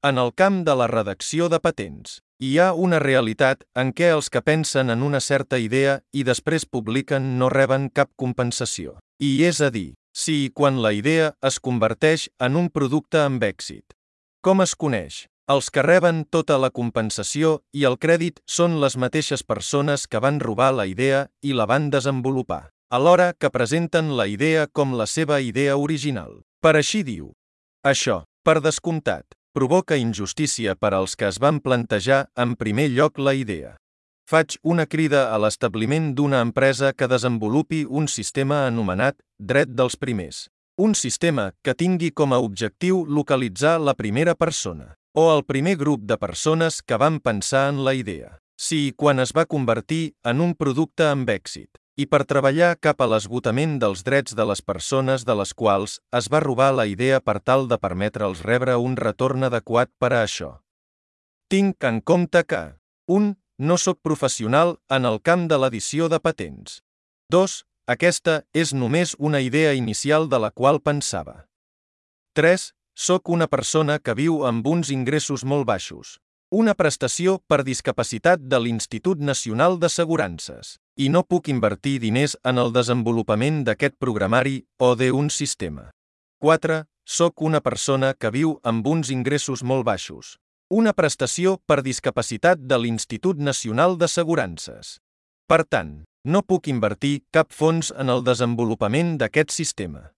En el camp de la redacció de patents, hi ha una realitat en què els que pensen en una certa idea i després publiquen no reben cap compensació. I és a dir, si i quan la idea es converteix en un producte amb èxit. Com es coneix? Els que reben tota la compensació i el crèdit són les mateixes persones que van robar la idea i la van desenvolupar, alhora que presenten la idea com la seva idea original. Per així diu. Això, per descomptat, provoca injustícia per als que es van plantejar en primer lloc la idea. Faig una crida a l'establiment d'una empresa que desenvolupi un sistema anomenat dret dels primers. Un sistema que tingui com a objectiu localitzar la primera persona o el primer grup de persones que van pensar en la idea, si i quan es va convertir en un producte amb èxit, i per treballar cap a l'esgotament dels drets de les persones de les quals es va robar la idea per tal de permetre'ls rebre un retorn adequat per a això. Tinc en compte que 1. No soc professional en el camp de l'edició de patents. 2. Aquesta és només una idea inicial de la qual pensava. 3. Soc una persona que viu amb uns ingressos molt baixos. Una prestació per discapacitat de l'Institut Nacional d'Assegurances. I no puc invertir diners en el desenvolupament d'aquest programari o d'un sistema. 4. Soc una persona que viu amb uns ingressos molt baixos. Una prestació per discapacitat de l'Institut Nacional d'Assegurances. Per tant, no puc invertir cap fons en el desenvolupament d'aquest sistema.